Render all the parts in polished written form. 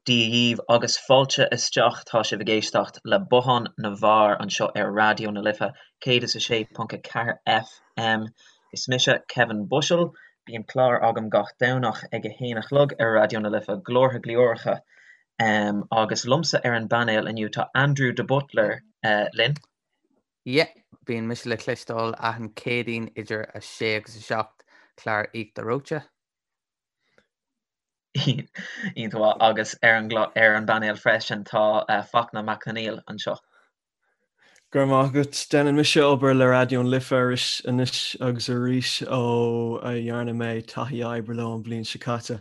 Dia dhaoibh agus fáilte isteach, tá sibh ag éisteacht le Bothán na bhFear anseo ar Raidió na Life 106.4 FM. Is mise Kevin Bushell, bíonn clár agam gach Domhnach ag a haon a chlog ar Raidió na Life, Glórtha Glioracha. Agus liomsa ar an bpainéal inniu tá Andrew de Buitléar linn. Yeah, bíonn mise le cloisteáil achan Céadaoin idir 6 agus 7, clár Íochtar Reoite. Iontach maith. Agus ar an ar an bpainéal freisin tá Fachtna Mac Conghail anseo. Go raibh maith agat. Déanann mise obair le Raidió na Life arís anois agus arís ó a dhearna mé taithí oibre leo an bhliain seo caite.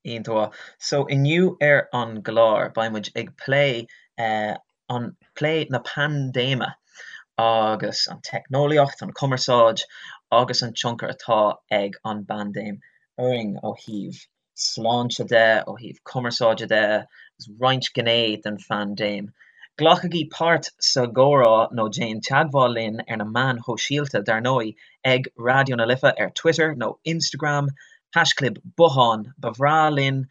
Iontach maith. So inniu ar an gclár beidh muid ag plé an plé na paindéime agus an teicneolaíocht, an chumarsáid agus an tionchar atá ag an bpaindéim orainn ó thaobh sláinte de, ó thaobh cumarsáide de, agus roinnt gné den phaindéim. Glacaigí páirt sa gcomhrá nó déan teagmháil linn ar na meáin shóisialta, dar ndóigh, ag Raidió na Life ar Twitter nó Instagram, haischlib bothán, ba bhreá linn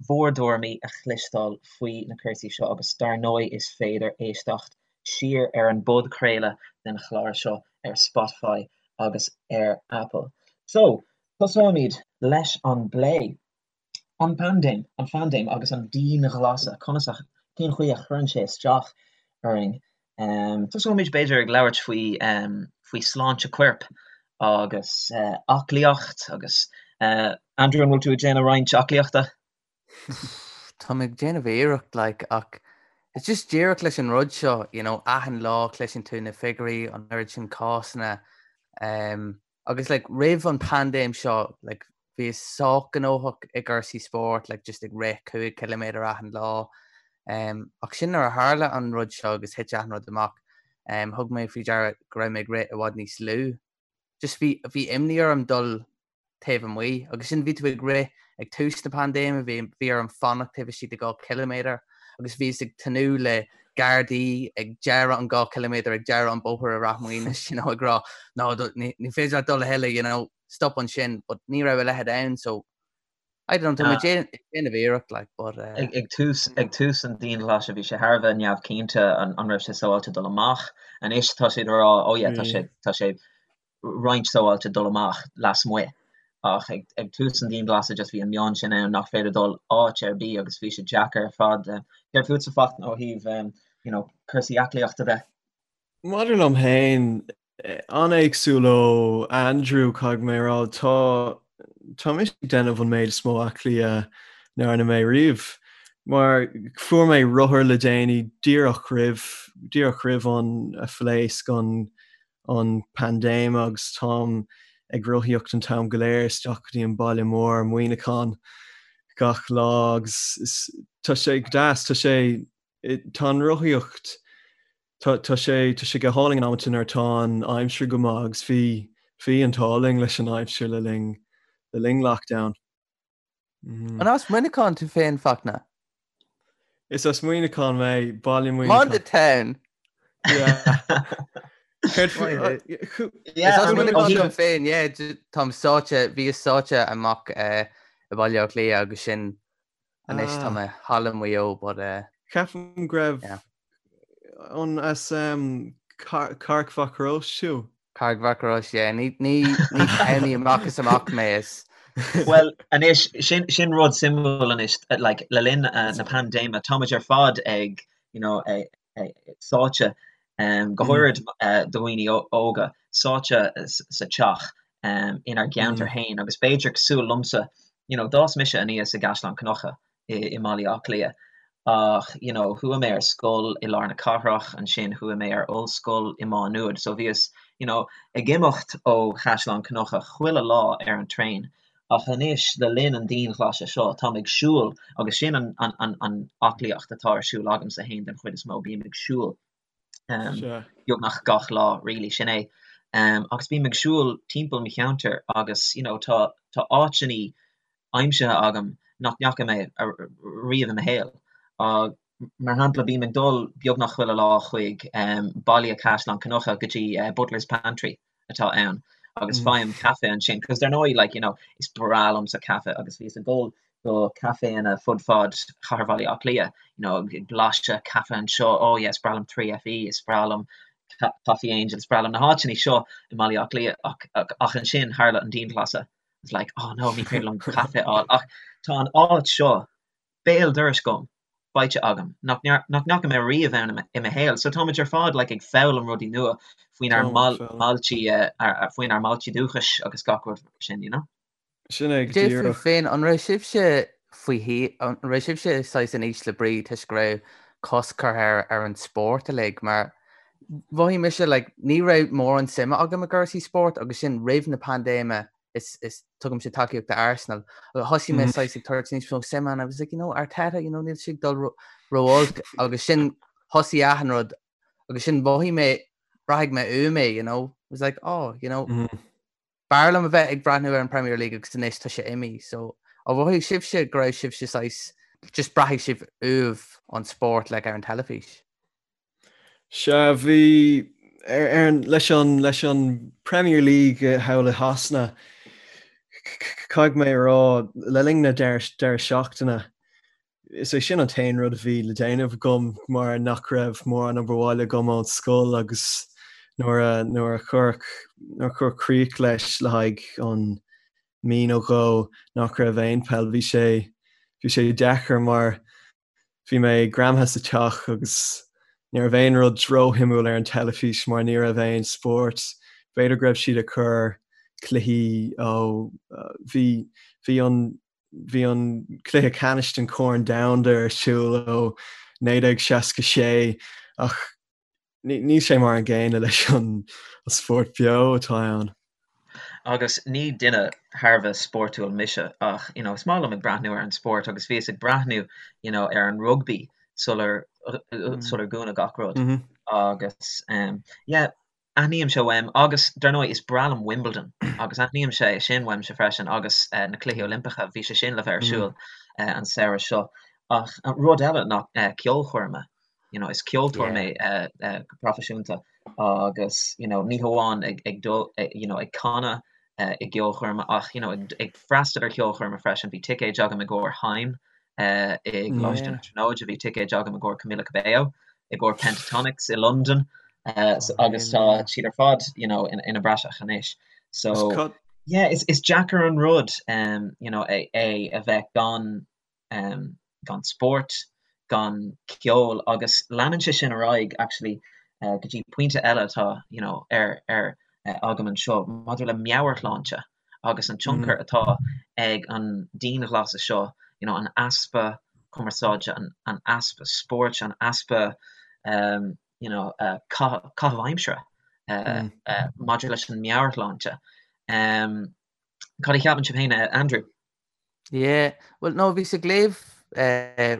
bhur dtuairimí a chloisteáil faoi na cúrsaí seo agus dar ndóigh is féidir éisteacht siar ar an bpodchraoladh den chlár seo ar Spotify agus ar Apple. So, tosóimid leis an bplé. An paindéim, an phaindéim agus an dianghlasáil, conas a, cén chaoi a chuireann sé isteach orainn? Tosóimid b'fhéidir ag labhairt faoi, faoi sláinte coirp agus aclaíocht agus Andrew an bhfuil tú ag déanamh roinnt aclaíochta? Tá mé ag déanamh iarracht like ach it's just díreach leis an rud seo you know achan lá cloiseann tú na figiúirí an oiread sin cásanna um, agus like roimh an paindéim seo like bhíos sách gnóthach i gcúrsaí spóirt like just ag rith 5 ciliméadar achan lá um, ach sin nuair a tharla an rud seo agus thit achan rud amach um, thug mé faoi deara go raibh mé ag rith i bhfad níos lú. Just bhí, bhí imní orm dul taobh amuigh agus sin bhí tú ag rith ag tús na paindéime, bhí, bhí orm fanacht taobh istigh de 2 ciliméadar agus bhíos ag tnúth le gardaí ag deireadh an 2 ciliméadar ag deireadh an bóthar i Rath Maoinis, you know, ag rá no, ní, ní féidir leat dul a thuilleadh, you know, stop ansin, but ní raibh a leithéid ann, so I don't know, tá mé ag déanamh iarracht, like, but. Ag tús, ag tús an dianghlasáil bhí sé thar a bheith neamhchinnte an an raibh sé sábháilte dul amach. Anois tá siad ag rá, oh yeah, tá sé, tá sé roinnt sábháilte dul amach lasmuigh. Ach ag, ag tús an dianghlasáil just bhí an meon sin ann nach féidir dul áit ar bith agus bhí sé deacair ar fad. Céard fútsa Fachtna ó thaobh, you know, cúrsaí aclaíochta de? Maidir liom féin, An-éagsúil ó Andrew, caithfidh mé a rá. Tá tá mise ag déanamh an méid is mó aclaí a ndearna mé riamh. Mar fuair mé rothar le déanaí díreach roimh díreach roimh an a phléasc an an paindéim agus táim ag rothaíocht an t-am go léir isteach go dtí an baile mór, Muineachán, gach lá agus is tá sé go deas, tá sé tá an rothaíocht Tá tá sé tá sé go hálainn in amanta nuair atá an aimsir go maith agus bhí bhí an t-ádh linn leis an aimsir le linn le linn lockdown. An as Muineachán tú féin, Fachtna? Is as Muineachán mé, baile Muineachán. Monday Town! Yeah. Céard faoi- Is as Muineachán dom féin, yeah, táim sáite, bhíos sáite amach i Baile Átha Cliath agus sin Anois tá mé thall i Maigh Eo but eh. Ceapaim go raibh Yeah. an as um, Carraig Mhac Rois tú? Carraig Mhac Rois, yeah. Ní ní ní townie amach is amach mé is. Well, anois, sin, sin rud suimiúil anois, like, le linn uh, na paindéime, táimid ar fad ag, you know, ag, sáite, go háirid do dhaoine óga, sáite sa teach inár gceantar féin agus b'fhéidir cosúil liomsa, you know, d'fhás mise aníos i gCaisleán Cnucha i mBaile Átha Cliath ach, you know, chuaigh mé ar scoil i lár na cathrach, ansin chuaigh mé ar ollscoil i Má Nuad, so bhíos, you know, ag imeacht ó Chaisleán Cnucha chuile lá ar an traein Ach anois, le linn an dianghlasáil seo, táim ag siúl, agus sin an an aclaíocht atá ar siúl agamsa féin den chuid is mó, bím ag siúl beagnach gach lá, really, sin é. Agus bím ag siúl timpeall mo cheantair agus, you know, tá tá áiteanna aimsithe agam nach ndeachaigh mé riamh i mo shaol. Mar shampla, bím ag dul beagnach chuile lá chuig baile Chaisleán Cnucha go dtí Butler's Pantry atá ann agus faighim caife ansin, cos dar ndóigh, like, you know, is breá liomsa caife agus bhíos ag dul Do caiféanna fud fad chathair Bhaile Átha Cliath, you know, ag blaiseadh caife anseo, oh yeah, is breá liom 3FE, is breá liom Coffee Angel, is breá liom na háiteanna seo i mBaile Átha Cliath ach, ach, ach ansin tharla an dianghlasáil. It's like, oh no, ní féidir liom caife a fháil ach tá an áit seo béal dorais agam, faighte agam, nach nach ndeachaigh mé riamh ann i mo shaol. So táimid ar fad like ag foghlaim rudaí nua faoinár mbailte, faoinár mbailte dúchais agus gach rud mar sin, you know? Sin é go Cad é fúibh díreach. féin, an raibh sibhse faoi thí, an raibh sibhse saghas in ísle brí toisc go raibh cosc curtha ar ar an spórt uilig mar mhothaigh mise like ní raibh mórán suime agam i gcúrsaí spóirt agus sin roimh na paindéime is is tugaimse tacaíocht do Arsenal agus thosaigh mé saghas ag tabhairt níos mó suime and I was like you know Arteta you know níl sé ag dul ró ró-olc agus sin thosaigh achan rud agus sin mhothaigh mé braithfidh mé uaim é you know I was like oh you know B'fhearr liom a bheith ag breathnú ar an Premier League agus anois tá sé imithe so ar mhothaigh sibhse go raibh sibhse saghas just braithfidh sibh uaibh an spórt like ar an teilifís? Sea, bhí ar ar an leis an leis an Premier League thall i Shasana caithfidh mé a rá le linn na deireadh deireadh seachtaine Is é sin an t-aon rud a bhí le déanamh agam mar nach raibh mórán obair bhaile agam ón scoil agus nuair a nuair a cuireadh nuair a cuireadh críoch leis le haghaidh an mí nó dhó nach raibh aon peil bhí sé bhí sé deacair mar bhí mé greamaithe sa teach agus ní raibh aon rud róshuimiúil ar an teilifís mar ní raibh aon spórt. B'fhéidir go raibh siad ag cur cluichí ó bhí bhí an Bhí an cluiche ceannais den Chorn Domhanda ar siúl ó 1966 ach níl sé mar an gcéanna leis an spórt beo atá ann. Agus ní duine thar a bheith spórtúil mise ach you know is maith liom ag breathnú ar an spórt agus bhíos ag breathnú you know ar an rugbaí sular sular dúnadh gach rud agus yeah Aithnímse uaim, agus dar ndóigh is breá liom Wimbledon agus aithnímse é sin uaimse freisin agus na Cluichí Oilimpeacha, bhí sé sin le bheith ar siúl an samhradh seo. Ach rud eile ná ceolchoirme, you know, is ceoltóir mé go proifisiúnta agus you know ní hamháin ag ag dul you know ag canadh i gceolchoirme ach you know ag freastal ar cheolchoirme freisin. Bhí ticéid agam i gcomhair Haim i gColáiste na Tríonóide, bhí ticéid agam i gcomhair Camila Cabello, i gcomhair Pentatonix i Londain agus tá siad ar fad you know ina bpraiseach anois. So yeah, is is deacair an rud you know é é a bheith gan gan spórt, gan ceol agus leanann sé sin ar aghaidh actually go dtí pointe eile atá you know ar ar agam anseo maidir le meabhairshláinte. agus an tionchar atá ag an dianghlasáil seo, you know, an easpa cumarsáide, an easpa spóirt, an easpa you know, caitheamh aimsire maidir leis an meabhairshláinte. Cad a cheapann sibh féin, Andrew? Yeah, well no, bhíos ag léamh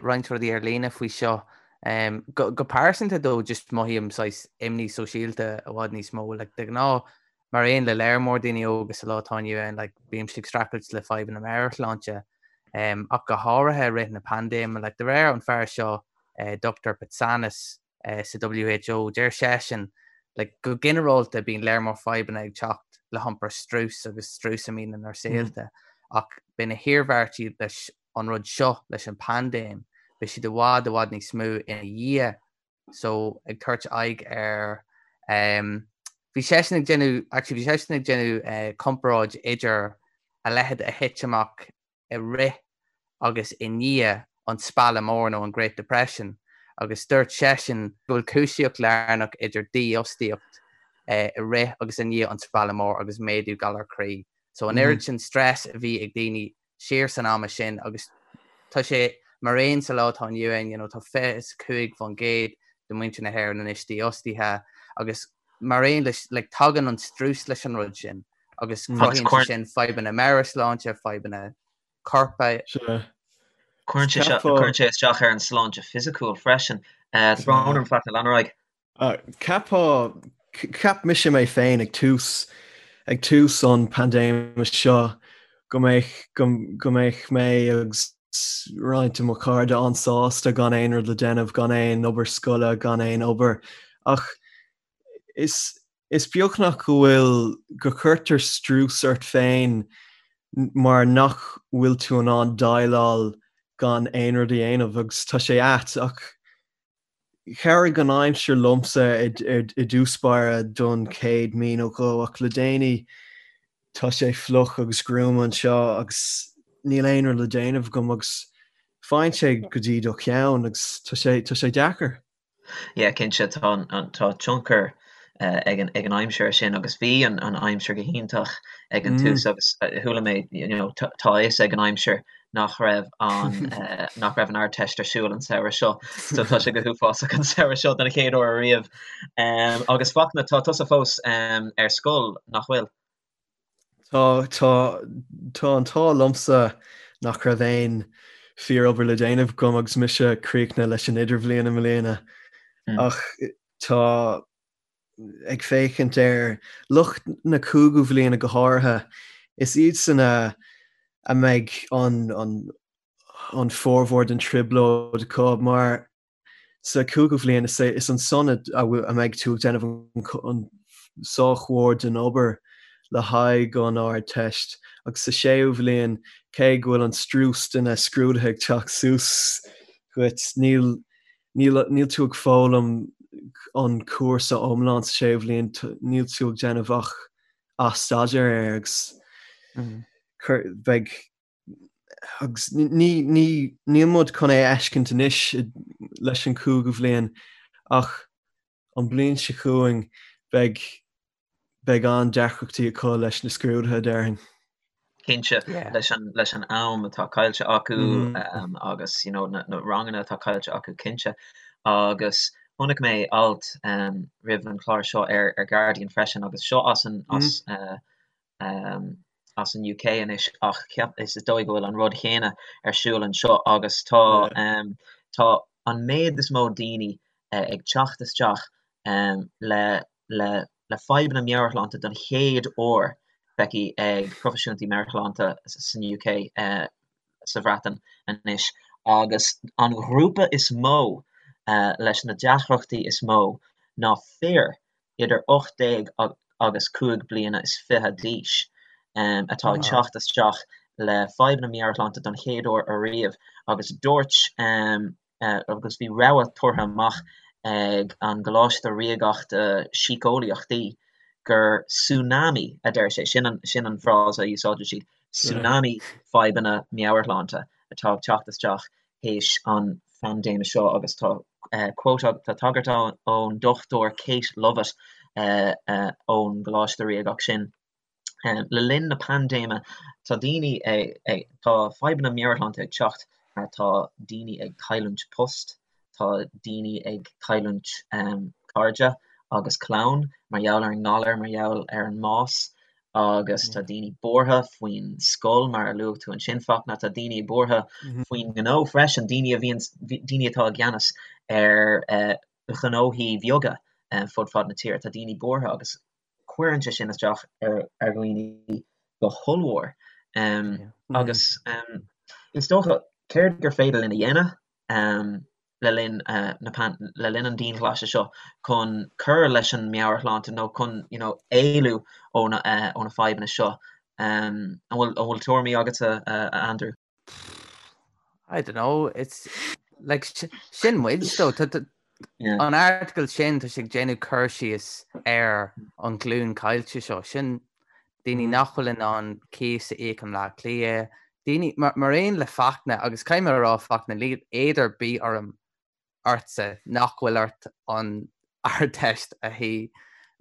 roinnt rudaí ar líne faoi seo. Go go pearsanta though, just mothaím saghas imní sóisialta i bhfad níos mó, like de ghnáth mar aon le léar mór daoine óga sa lá atá inniu ann, like bímse ag streachailt le fadhbanna meabhairshláinte, ach go háirithe i rith na paindéime, like de réir an fear seo, Dr Patsanis, sa WHO, deir seisean like go ginearálta bíonn léar mór fadhbanna ag teacht le hiompar strus agus strus a mbíonn inár saolta ach beidh na hiarmhairtí leis an rud seo, leis an paindéim, beidh siad i bhfad i bhfad níos mó ina dhiaidh so ag tabhairt aghaidh ar um, bhí seisean ag déanamh actually bhí seisean ag déanamh uh, comparáid idir a leithéid a thit amach i rith agus i ndiaidh an Spealadh Mór nó an Great Depression agus dúirt seisean go bhfuil cúisíocht lárnach idir dífhostaíocht i rith agus i ndiaidh an Spealadh Mór agus méadú galar croí. So an oiread sin stress a bhí ag daoine siar san ama sin agus tá sé mar aon sa lá atá inniu ann, you know, tá 25% de mhuintir na hÉireann anois dífhostaithe agus mar aon leis, like, tagann an strus leis an rud sin agus cruthaíonn sé sin fadhbanna meabhairshláinte, fadhbanna coirp. Cuireann sé isteach ar an sláinte fisiciúil freisin. Tá brón orm Fachtna, lean ar aghaidh. Cheapfá, cheap mise mé féin ag tús, ag tús an paindéime seo go mbeadh, go mbeadh mé agus roinnt de mo chairde an-sásta gan aon rud le déanamh, gan aon obair scoile, gan aon obair. Ach is, is beagnach go bhfuil, go cuirtear strús ort féin. Mar nach bhfuil tú in ann déileáil gan aon rud a dhéanamh agus tá sé ait ach chabhraigh an aimsir liomsa i dtús báire don chéad mí nó dhó ach le déanaí tá sé fliuch agus gruama anseo agus níl aon rud le déanamh agam agus faigheann sé go dtí do cheann agus tá sé tá sé deacair. Yeah, cinnte, tá an, tá tionchar ag an, ag an aimsir sin agus bhí an, an aimsir go hiontach ag an tús agus chuala mé, you know, tá a fhios ag an aimsir nach raibh an, nach raibh an Ardteist ar siúl an samhradh seo, so tá sé go huafásach an samhradh seo den chéad uair ariamh. Agus Fachtna, tá tusa fós ar scoil, nach bhfuil? Tá, tá, tá an t-ádh liomsa nach raibh aon fíor-obair le déanamh agam agus mise críochnaithe leis an idirbhliain i mbliana. Ach tá, ag féachaint ar lucht na cúigiú bhliana go háirithe, is iadsan a a mbeidh an, an, an formhór den trioblóid acu mar Sa chúigiú bhliain, is é is ansan a mbeidh tú ag déanamh an sách mhór den obair le haghaidh an Ardteist, agus sa séú bhliain, cé go bhfuil an strús de na scrúduithe ag teacht suas dhuit, níl níl tú ag foghlaim an cúrsa iomlán sa séú bhliain, níl tú ag déanamh ach athstaidéar air agus beidh Agus ní, ní, níl muid chun é a fheiscint anois leis an chúigiú bhliain ach an bliain seo chugainn beidh, beidh an-deacrachtaí acu leis na scrúduithe, déarfainn. Cinnte, leis an, leis an am atá caillte acu agus you know na, na ranganna atá caillte acu, cinnte. Agus chonaic mé alt roimh an chlár seo ar, ar Guardian freisin agus seo as an, as as an UK anois ach cheap, is dóigh go bhfuil an rud chéanna ar siúl anseo agus tá tá an méid is mó daoine ag teacht isteach le le le fadhbanna meabhairshláinte don chéad uair feicthe ag proifisiúntaí meabhairshláinte san UK sa Bhreatain anois agus an ghrúpa is mó leis na deacrachtaí is mó ná fir idir 18 agus 25 bliana d'aois atá ag teacht isteach le fadhbanna meabhairshláinte don chéad uair ariamh agus dúirt agus bhí rabhadh tabhartha amach ag an gColáiste Ríoga Síceolaíochtaí gur tsunami a deir sé, sin an sin an frása a úsáideann siad, tsunami fadhbanna meabhairshláinte atá ag teacht isteach théis an phaindéime seo agus tá quote tá tagairt ann ón Dr Kate Lovett ón gColáiste Ríogach sin. Le linn na paindéime tá daoine ag tá fadhbanna meabhairshláinte ag teacht mar tá daoine ag cailliúint post, tá daoine ag cailliúint cairde agus clann mar gheall ar an ngalar, mar gheall ar an mbás agus tá daoine buartha faoin scoil mar a luaigh tú ansin Fachtna, tá daoine buartha faoin ngnó freisin, daoine a bhíonn, daoine atá i gceannas ar ghnóthaí beaga fud fad na tíre, tá daoine buartha agus cuireann sé sin isteach ar dhaoine go hollmhór. Agus is dócha céard gur féidir linn a dhéanamh? le linn na le linn an dianghlaise seo chun cur leis an meabhairshláinte nó chun you know éalú ó na ó na fadhbanna seo. An bhfuil an bhfuil tuairimí agatsa a Andrew? I don't know, it's like sin muid though. An article sin tá sé ag déanamh cur síos ar an ghlúin caillte seo sin daoine nach bhfuil in ann cíos a íoc i mBleá Cliath, daoine, mar aon le Fachtna, agus caithfidh mé a rá Fachtna, níl éad ar bith orm ortsa nach bhfuil ort an Ardteist a shuí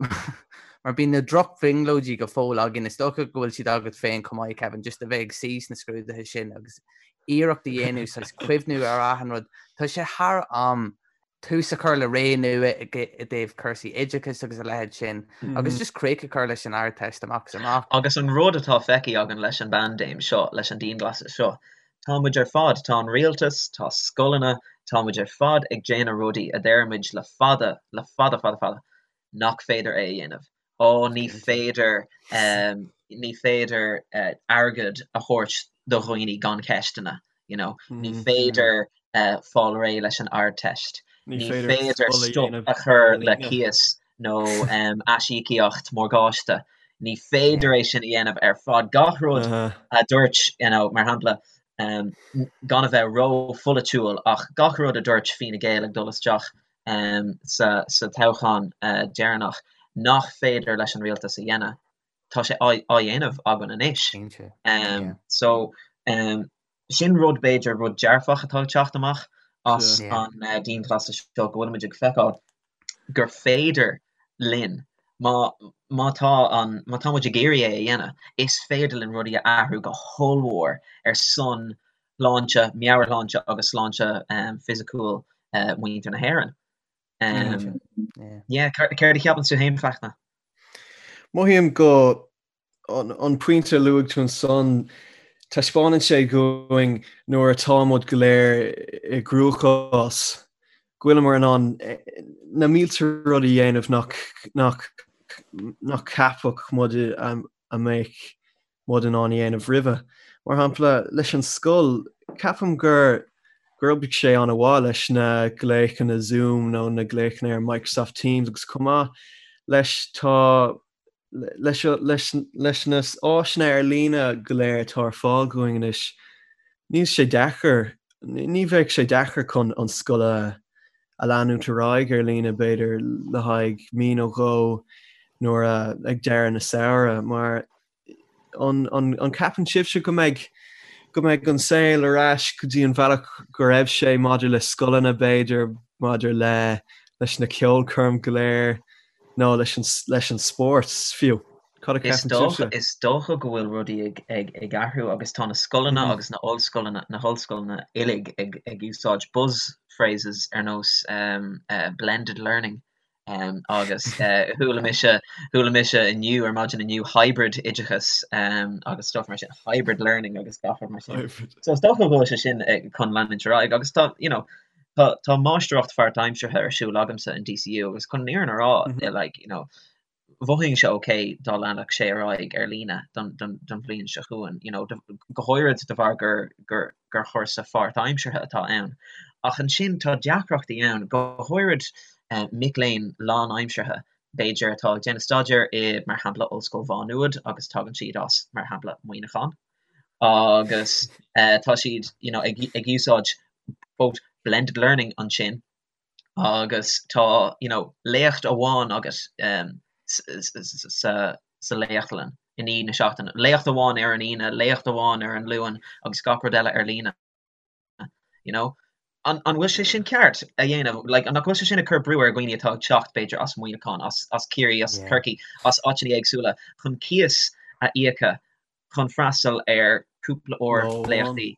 mar bíonn na drochbhrionglóidí go fóill againn, is dócha go bhfuil siad agat féin chomh maith Kevin, just a bheith ag suí sna scrúduithe sin agus iarracht a dhéanamh saghas cuimhniú ar achan rud. Tá sé thar am tús a chur le ré nua i dtaobh cúrsaí oideachais agus a leithéid sin agus just críoch a chur leis an Ardteist amach is amach. Agus an rud atá feicthe againn leis an bpaindéim seo, leis an dianghlasáil seo, tá muid ar fad, tá an rialtas, tá scoileanna, tá muid ar fad ag déanamh rudaí a deir muid le fada, le fada fada fada, nach féidir é a dhéanamh. Ó ní féidir, ní féidir airgead a thabhairt do dhaoine gan ceisteanna, you know, ní féidir fáil réidh leis an Ardteist, ní féidir stop a chur le cíos nó aisíocaíocht morgáiste. Ní féidir é sin a dhéanamh ar fad. Gach rud a dúirt, you know, mar shampla, gan a bheith ró-pholaitiúil, ach gach rud a dúirt Fine Gael ag dul isteach sa toghchán deireanach nach féidir leis an rialtas a dhéanamh, tá sé á dhéanamh againn anois. So, sin rud, b'fhéidir, rud dearfach atá ag teacht amach as an dianghlasáil seo, go bhfuilimid ag feiceáil gur féidir linn, má, má tá an, má tá muid ag iarraidh é a dhéanamh, is féidir linn rudaí a athrú go hollmhór ar son shláinte, meabhairshláinte agus sláinte fisiciúil mhuintir na hÉireann. Yeah, céard a cheapann tú féin, Fachtna? Mothaím go an pointe a luaigh tú ansan, taispeánann sé dhúinn nuair atá muid go léir i gcruachás, go bhfuileamar in ann na mílte rud a dhéanamh nach nach nach ceapfadh muid a mbeadh muid in ann a dhéanamh roimhe. Mar shampla, leis an scoil, ceapaim gur gur oibrigh sé an-mhaith leis na glaochanna Zoom nó na glaochanna ar Microsoft Teams agus chomh maith leis tá leis na áiseanna ar líne go léir atá ar fáil dhúinn anois, níl sé deacair, ní bheadh sé deacair chun an scoil a leanúint ar aghaidh ar líne, b'fhéidir, le haghaidh mí nó dhó nuair a, ag deireadh na samhradh, mar an gceapann sibhse go mbeidh, go mbeidh an saol ar ais go dtí an bhealach go raibh sé maidir le scoileanna, b'fhéidir, maidir le, leis na ceolchoirm go léir? nó leis an leis an spórt fiú. Cad a cheapann sibhse? Is dócha go bhfuil rudaí ag ag ag athrú agus tá na scoileanna agus na ollscoileanna na hollscoileanna uilig ag ag úsáid buzz phrases ar nós blended learning agus chuala mise chuala mise inniu ar maidin inniu hybrid oideachas agus stuff mar sin hybrid learning agus gach rud mar sin. So is dócha go bhfuil sé sin chun leanúint ar aghaidh agus tá you know Tá tá máistreacht pháirtaimseartha ar siúl agamsa in DCU agus chun an fhírinne a rá like you know mhothóinn sé ok dá leanfadh sé ar aghaidh ar líne don don don bhliain seo chugainn you know go háirid de bharr gur gur gur chúrsa pháirtaimseartha atá ann. Ach ansin tá deacrachtaí ann, go háirid mic léinn lánaimseartha b'fhéidir atá ag déanamh staidéir i mar shampla Ollscoil Mhá Nuad agus tagann siad as mar shampla Muineachán agus tá siad you know ag ag úsáid quote blended learning ansin agus tá you know léacht amháin agat sa sa léachtlann in aghaidh na seachtaine, léacht amháin ar an Aoine, léacht amháin ar an Luan agus gach rud eile ar líne you know. An an bhfuil sé sin ceart a dhéanamh? Like an nach bhfuil sé sin ag cur brú ar dhaoine atá ag teacht b'fhéidir as Muineachán, as as Ciarraí, as Corcaigh, as áiteanna éagsúla chun cíos a íoca chun freastal ar cúpla uair léachtaí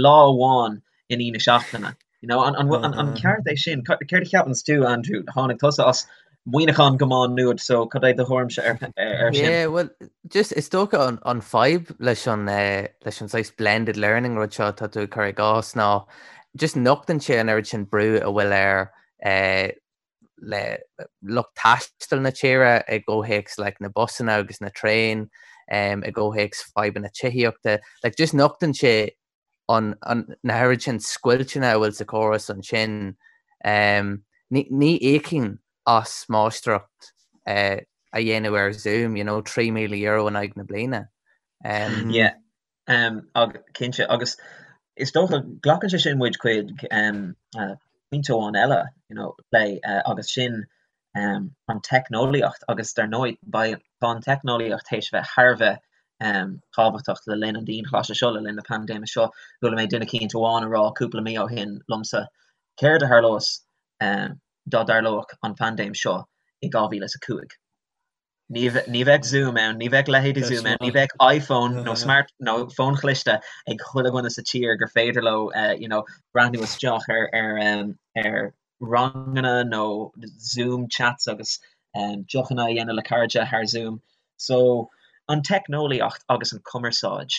lá amháin in aghaidh na seachtaine. You know, an, an, an, an ceart é sin? Céard a cheapanns tú, Andrew? Tháinig tusa as Muineachán go Má Nuad, so cad é do thuairimse ar, ar sin? Yeah, well, just is dócha an, an fadhb leis an, uh, leis an saghas blended learning rud seo atá tú ag cur i gcás ná just nochtann sé an oiread sin brú a bhfuil ar uh, le lucht taistil na tíre i gcomhthéacs like, na busanna agus na traein, um, i gcomhthéacs fadhbanna tithíochta. Like, just nochtann sé an, an, na hoiread sin scoilteanna a bhfuil sa chóras ansin. Um, ní, ní íocfainn as máistreacht uh, a dhéanamh ar Zoom, you know, €3,000 in aghaidh na bliana. Um, yeah. Cinnte, agus is dócha, glacann sé sin muid chuig pointe amháin eile, you know, plé, agus sin an teicneolaíocht agus dar ndóigh, beidh, tá an teicneolaíocht théis a bheith thar a bheith tábhachtach le linn an dianghlasála seo, le linn na paindéime seo. Chuala mé duine eicínt amháin a rá cúpla mí ó shin liomsa, céard a tharlós dá dtarlódh an phaindéim seo i 2005? Ní bheadh Zoom ann, ní bheadh leithéidí Zoom ann, ní bheadh iPhone nó smart nó fón chliste ag chuile dhuine sa tír gur féidir leo you know breathnú isteach ar ar ar ranganna nó Zoom chats agus deochanna a dhéanamh le cairde thar Zoom. So an teicneolaíocht agus an cumarsáid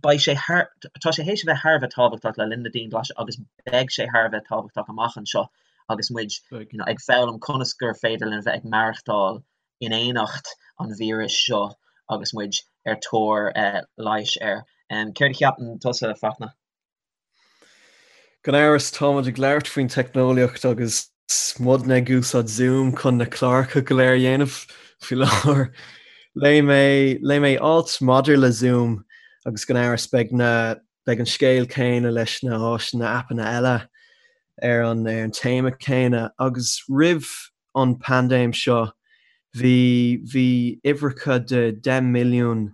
Beidh sé thar, tá sé théis a bheith thar a bheith tábhachtach le linn na dianghlaise agus beidh sé thar a bheith tábhachtach amach anseo agus muid you know ag foghlaim conas gur féidir linn a bheith ag maireachtáil in éineacht an víris seo agus muid ar tóir leighis air. Céard a cheapann tusa, Fachtna? Gan amhras, táimid ag labhairt faoin teicneolaíocht agus. muidne ag úsáid Zoom chun na cláracha go léir a dhéanamh faoi láthair. Léigh mé, léigh mé alt maidir le Zoom agus gan amhras beidh na, beidh an scéal céanna leis na háiseanna, aipeanna eile ar an, ar an téama céanna. Agus roimh an paindéim seo bhí, bhí uimhreacha de 10 milliún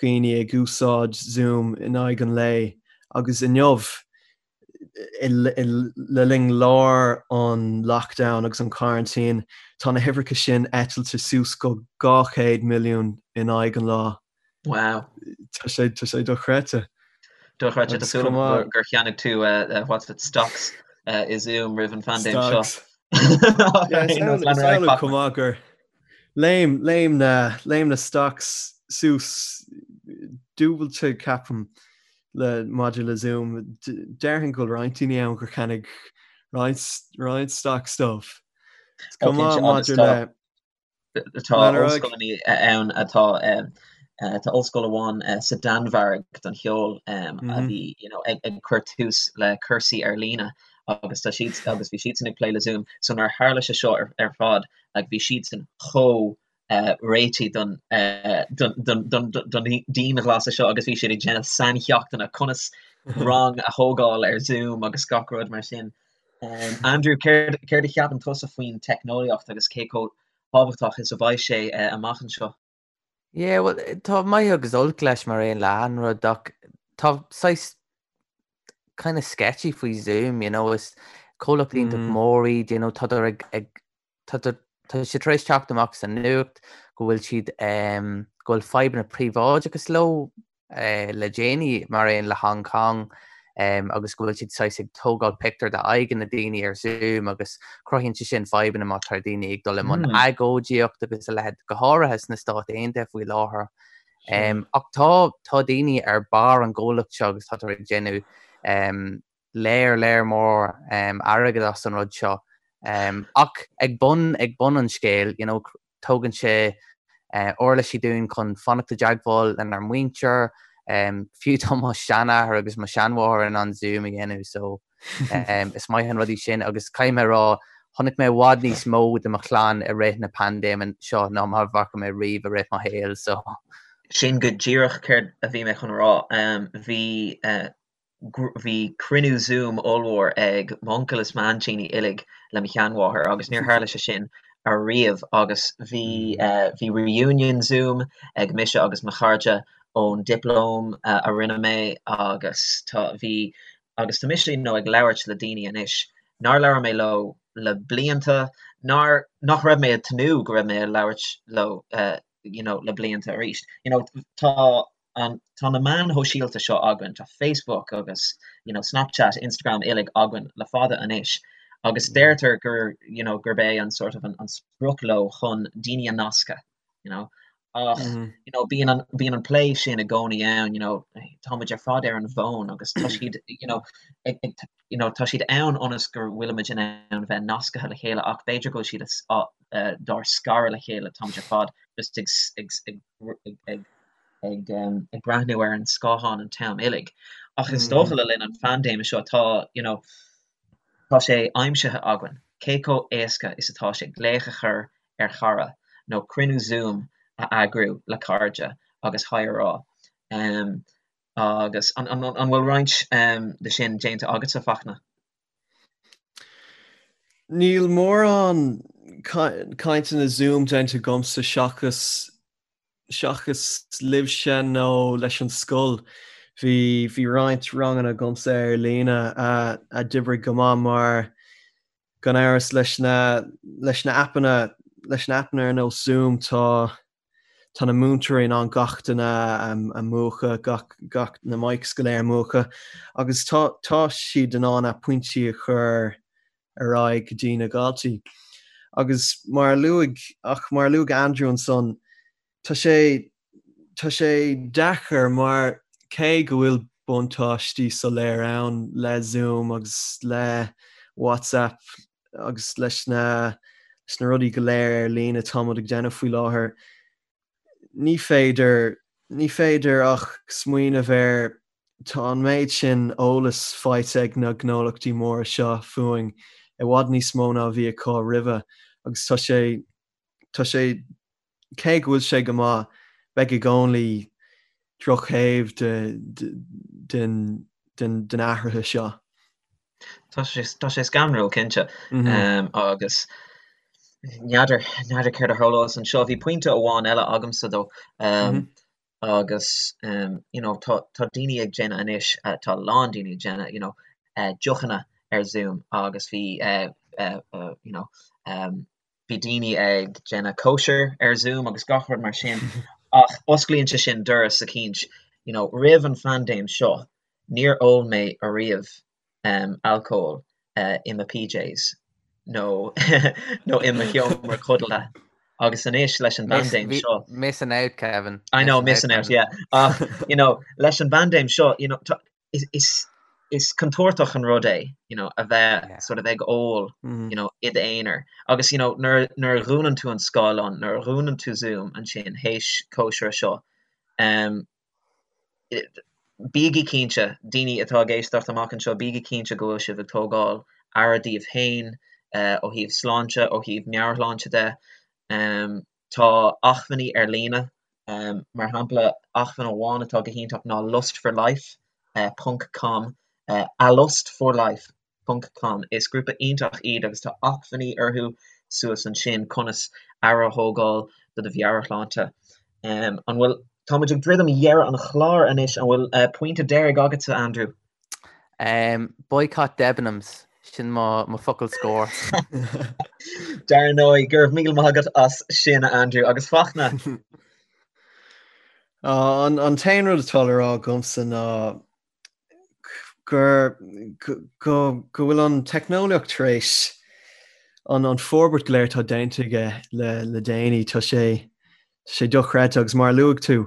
dhaoine ag úsáid Zoom in aghaidh an lae agus inniu, le linn lár an lockdown agus an quarantine, tá na huimhreacha sin eitilte suas go 200 milliún in aghaidh an lá. Wow. Tá sé tá sé dochreidte. Dochreidte tá súil agam gur cheannaigh tú what's it stocks i Zoom roimh an phaindéim seo. Chomh maith gur léim léim na léim na stocks suas dúbailte ceapaim le maidir le Zoom. Déarfainn go bhfuil roinnt daoine ann gur cheannaigh roinnt roinnt stocks dóibh. Chomh maith maidir le Tá ollscoileanna ann atá tá ollscoil amháin sa Danmhairg don cheol a bhí you know ag ag cur tús le cúrsaí ar líne agus tá siad agus bhí siadsan ag plé le Zoom so nuair a tharla sé seo ar ar fad like bhí siadsan chomh réitithe don don don don don dianghlasáil seo agus bhí siad ag déanamh saincheachtanna conas rang a thógáil ar Zoom agus gach rud mar sin. Andrew, céard céard a cheapann tusa faoin teicneolaíocht agus cé chomh tábhachtach is a bheidh sé amach anseo? Yeah, well, tá maith agus olc leis mar aon le achan rud ach tá saghas kind of sketchy faoi Zoom, you know, is comhlacht iontach mór iad, you know, tádar ag ag Tá sé tar éis teacht amach sa nuacht go bhfuil siad, go bhfuil fadhbanna príobháideachais leo le déanaí, mar aon le Hong Kong, agus go bhfuil siad saghas ag tógáil pictiúr de aghaidheanna daoine ar Zoom agus cruthaíonn sé sin fadhbanna má tá daoine ag dul i mbun agóidíocht agus a leithéid, go háirithe sna Stáit Aontaithe faoi láthair. Ach tá, tá daoine ar barr an gcomhlacht seo agus tádar ag déanamh léar, léar mór airgead as an rud seo. Ach ag bun, ag bun an scéil, you know, tógann sé uirlisí dúinn chun fanacht i dteagmháil lenár muintir, fiú tá mo sheanathair agus mo sheanmháthair in ann Zoom a dhéanamh so is maith an rud í sin agus caithfidh mé a rá, chonaic mé i bhfad níos mó de mo chlann i rith na paindéime seo ná mar a bhfaca mé riamh i rith mo shaoil so. Sin go díreach céard a bhí mé chun a rá. Bhí bhí cruinniú Zoom ollmhór ag m'uncail is m'aintíní uilig le mo sheanmháthair agus níor tharla sé sin ariamh agus bhí bhí reunion Zoom ag mise agus mo chairde ón dioplóma a rinne mé agus tá bhí agus tá mise you know ag labhairt le daoine anois nár labhair mé leo le blianta nár nach raibh mé ag tnúth go raibh mé ag labhairt leo you know le blianta arís you know tá an, tá na meáin shóisialta seo againn, tá Facebook agus you know Snapchat, Instagram uilig againn le fada anois agus deirtear gur you know gurb é an sort of an, an sprioc leo chun daoine a nascadh you know ach you know bíonn an, bíonn an plé sin i gcónaí ann you know tá muid ar fad ar an bhfón agus tá siad you know ag, ag, you know tá siad ann ionas go bhfuilimid in ann bheith nasctha le chéile ach b'fhéidir go bhfuil siad a, dár scaradh le chéile tá muid ar fad just ag, ag, ag, ag, ag ag ag breathnú ar an scáthán an t-am uilig. Ach is dócha le linn an phaindéime seo tá, you know, tá sé aimsithe againn cé chomh éasca is atá sé glaoch a chur ar chara nó cruinniú Zoom a eagrú le cairde agus haigh a rá. Agus an an bhfuil roinnt de sin déanta agatsa, Fachtna? Níl mórán cainteanna Zoom déanta agamsa seachas seachas libhse nó leis an scoil. Bhí bhí roinnt ranganna agamsa ar líne a a d'oibrigh go maith mar gan amhras leis na leis na aipeanna leis na aipeanna ar nós Zoom tá tá na múinteoirí in ann gach duine a mhúchadh, gach gach na mics go léir a mhúchadh agus tá tá siad in ann a pointí a chur ar aghaidh go dtí na daltaí. Agus mar a luaigh, ach mar a luaigh Andrew ansan, tá sé, tá sé deacair mar cé go bhfuil buntáistí soiléir ann le Zoom agus le WhatsApp agus leis na, leis na rudaí go léir ar líne atá muid ag déanamh faoi láthair, ní féidir, ní féidir ach smaoineamh ar Tá an méid sin eolas faighte ag na gnólachtaí móra seo fúinn. i bhfad níos mó ná a bhí acu roimhe agus tá sé tá sé cé go bhfuil sé go maith beidh i gcónaí drochthaobh de den den den athraithe seo. Tá sé tá sé scanrúil cinnte agus n'fheadar n'fheadar céard a tharlós anseo. Bhí pointe amháin eile agamsa though agus you know tá tá daoine ag déanamh anois tá a lán daoine ag déanamh you know deochanna ar Zoom agus bhí you know bhí daoine ag déanamh cóisir ar Zoom agus gach rud mar sin ach osclaíonn sé sin doras eicínt you know roimh an phaindéim seo níor ól mé ariamh alcól i mo PJs nó nó i mo sheomra codlata agus anois leis an bpaindéim seo. Missing out, Kevin. I know, missing out, yeah. Ach, you know, leis an bpaindéim seo, you know, is, is, is contúirteach an rud é, you know, a bheith yeah. sort of ag ól, mm. you know, i d'aonar. Agus, you know, nuair, nuair a dhúnann tú an scáileán, nuair a dhúnann tú Zoom ansin théis cóisire seo, um, Bígí cinnte, daoine atá ag éisteacht amach anseo, bígí cinnte go bhfuil sibh ag tógáil aire daoibh féin ó thaobh sláinte, ó thaobh meabhairshláinte de. Tá acmhainní ar líne, mar shampla, acmhainn amháin atá go hiontach ná lustforlife ponc com, alustforlife ponc com. Is grúpa iontach iad agus tá acmhainní orthu suas ansin conas aire a thógáil do do mheabhairshláinte. An bhfuil, tá muid ag druidim dheireadh an chláir anois, an bhfuil pointe deiridh agatsa, Andrew? Boycott Debenhams, sin mo mo focal scór. Dar ndóigh, go raibh míle maith agat as sin, Andrew, agus Fachtna. An t-aon rud atá le rá agamsa ná gur go go bhfuil an teicneolaíocht tar éis an an forbairt go léir atá déanta aige le le déanaí tá sé tá sé dochreidte agus mar a luaigh tú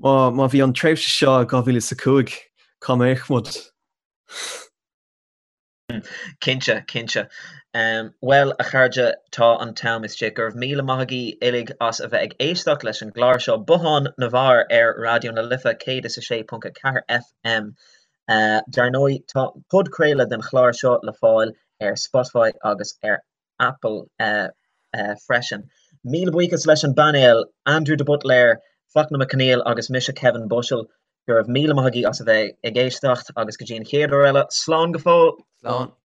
má má bhí an tréimhse seo i 2005 cá mbeadh muid? Cinnte, cinnte. Bhuel, a chairde, tá an t-am istigh. Go raibh míle maith agaibh uilig as a bheith ag éisteacht leis an gclár seo, Bothán na bhFear ar Raidió na Life 106.4 FM. Dar ndóigh, tá podchraoladh den chlár seo le fáil ar Spotify agus ar Apple freisin. Míle buíochas leis an bpainéal, Andrew de Buitléir, Fachtna Mac Conghail agus mise Kevin Bushell. Go raibh míle maith agaibh as a bheith ag éisteacht agus go dtí an chéad uair eile, slán go fóill! Slán.